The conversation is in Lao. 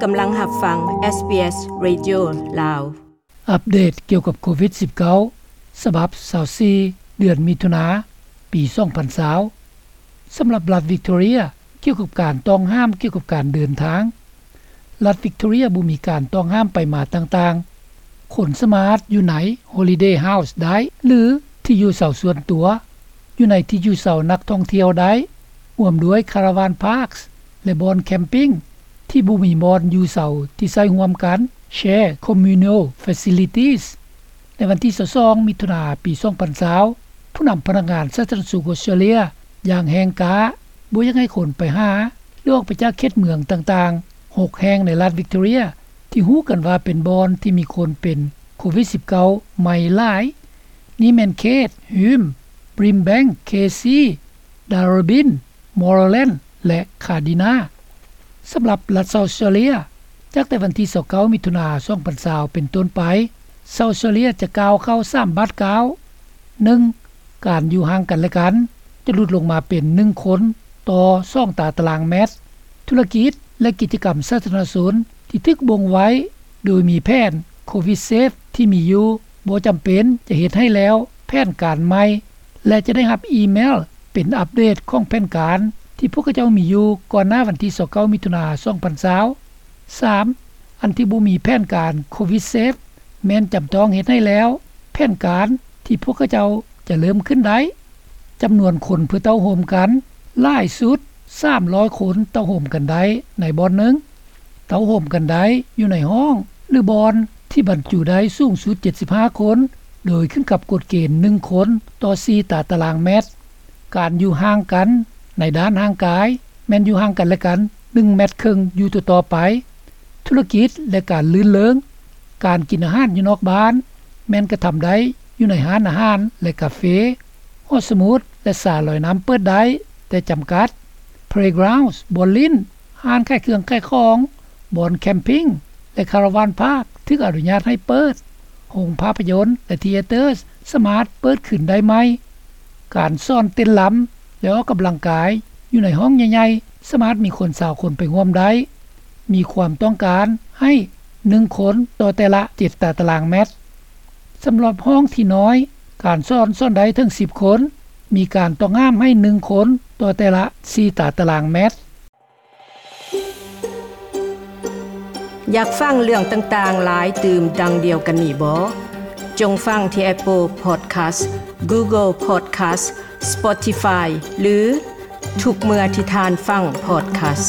ກຳລັງຮັບຟັງ ເອສບີເອສ ເຣດິໂອ ລາວ. ອັບເດດກ່ຽວກັບໂຄວິດສິບເກົ້າ ສະບັບຊາວສີ່ ເດືອນມິຖຸນາ ປີສອງພັນຊາວ. ສຳລັບລັດວິກຕໍເຣຍ ກ່ຽວກັບການຕ້ອງຫ້າມກ່ຽວກັບການເດີນທາງ, ລັດວິກຕໍເຣຍບໍ່ມີການຕ້ອງຫ້າມໄປມາຕ່າງໆ. ຄົນສາມາດຢູ່ໃນ Holiday House ໄດ້ ຫຼື ທີ່ຢູ່ເຊົາສ່ວນຕົວ, ຢູ່ໃນທີ່ຢູ່ເຊົານັກທ່ອງທ່ຽວໄດ້, ຮ່ວມດ້ວຍ Caravan Parks ແລະ ບ່ອນ Camping ທີ່ບໍ່ມີບ່ອນຢູ່ເຊົາທີ່ໃຊ້ຮ່ວມກັນ Shared Communal Facilities. ໃນວັນທີຊາວສອງ ມິຖຸນາ ປີສອງພັນຊາວ ຜູ້ນຳພະນັກງານສາທາລະນະສຸກອົດສະຕຣາເລຍ ຢ່າງແຮງກ້າ ບໍ່ຢາກໃຫ້ຄົນໄປຫາ ຫຼື ອອກໄປຈາກເຂດເມືອງຕ່າງໆ ຫົກແຫ່ງໃນລັດວິກຕໍເຣຍ ທີ່ຮູ້ກັນວ່າເປັນບ່ອນທີ່ມີຄົນເປັນໂຄວິດສິບເກົ້າໃໝ່ຫຼາຍ. ນີ້ແມ່ນເຂດ Hume, Brimbank, Casey, Darebin, Moreland ແລະ Cardina. ສຳລັບລັດເຊົາເຊີເຣຍ ຈາກແຕ່ວັນທີຊາວເກົ້າ ມິຖຸນາ ສອງພັນຊາວ ເປັນຕົ້ນໄປ, ເຊົາຊີເຣຍຈະກ້າວເຂົ້າສາມບາດກ້າວ. ໜຶ່ງ, ການຢູ່ຫ່າງກັນແລະກັນ ຈະຫຼຸດລົງມາເປັນໜຶ່ງຄົນຕໍ່ສອງຕາຕະລາງແມັດ. ທຸລະກິດ ແລະ ກິດຈະກຳສາທາລະນະຊົນທີ່ຖືກບົ່ງໄວ້ໂດຍມີແຜນ COVIDSafe ທີ່ມີຢູ່ ບໍ່ຈຳເປັນຈະເຮັດໃຫ້ແລ້ວແຜນການໃໝ່ ແລະ ຈະໄດ້ຮັບອີເມວເປັນອັບເດດຂອງແຜນການທີ່ພວກເຂົາເຈົ້າມີຢູ່ກ່ອນໜ້າວັນທີຊາວເກົ້າ ມິຖຸນາ ສອງພັນຊາວ. ສາມ, ອັນທີ່ບໍ່ມີແຜນການ COVIDSafe ແມ່ນຈຳຕ້ອງເຮັດໃຫ້ແລ້ວແຜນການທີ່ພວກເຂົາເຈົ້າຈະເລີ່ມຂຶ້ນໄດ້. ຈຳນວນຄົນເພື່ອເຕົ້າໂຮມກັນ ຫຼາຍສຸດ ສາມຮ້ອຍຄົນເຕົ້າໂຮມກັນໄດ້ໃນບ່ອນໜຶ່ງ. ເຕົ້າໂຮມກັນໄດ້ຢູ່ໃນຫ້ອງ ຫຼື ບ່ອນທີ່ບັນຈຸໄດ້ສູງສຸດ ເຈັດສິບຫ້າຄົນ ໂດຍຂຶ້ນກັບກົດເກນ ໜຶ່ງຄົນຕໍ່ສີ່ຕາຕະລາງແມັດ. ການຢູ່ຫ່າງກັນໃນດ້ານຮ່າງກາຍ ແມ່ນຢູ່ຫ່າງກັນແລະກັນ ໜຶ່ງແມັດເຄິ່ງຢູ່ຕໍ່ໆໄປ. ທຸລະກິດ ແລະ ການລື່ນເລີງ, ການກິນອາຫານຢູ່ນອກບ້ານ ແມ່ນກະທຳໄດ້ຢູ່ໃນຮ້ານອາຫານ ແລະ ກາເຟ, ຫໍສະໝຸດ ແລະ ສະລອຍນ້ຳເປີດໄດ້ ແຕ່ຈຳກັດ. Playgrounds ບ່ອນຫຼິ້ນ, ຮ້ານຂາຍເຄື່ອງຂາຍຂອງ, ບ່ອນ Camping ແລະ Caravan Park ຖືກອະນຸຍາດໃຫ້ເປີດ. ໂຮງພາບພະຍົນ ແລະ Theatres ສາມາດເປີດຄືນໄດ້ໃໝ່. ການສອນເຕັ້ນລຳ ແລະ ອອກກຳລັງກາຍຢູ່ໃນຫ້ອງໃຫຍ່ໆ ສາມາດມີຄົນຊາວຄົນໄປຮ່ວມໄດ້. ມີຄວາມຕ້ອງການໃຫ້ໜຶ່ງຄົນຕໍ່ແຕ່ລະເຈັດຕາຕະລາງແມັດ. ສຳລັບຫ້ອງທີ່ນ້ອຍ, ການສອນສອນໄດ້ເຖິງສິບຄົນ. ມີການຕ້ອງຫ້າມໃຫ້ໜຶ່ງຄົນຕໍ່ແຕ່ລະສີ່ຕາຕະລາງແມັດ. ຢາກຟັງເລື່ອງຕ່າງໆຫຼາຍຕື່ມດັ່ງດຽວກັນນີ້ບໍ? ຈົ່ງຟັງທີ່ Apple Podcast, Google Podcast, Spotify ຫຼື ທຸກເມື່ອທີ່ທ່ານຟັງ Podcast.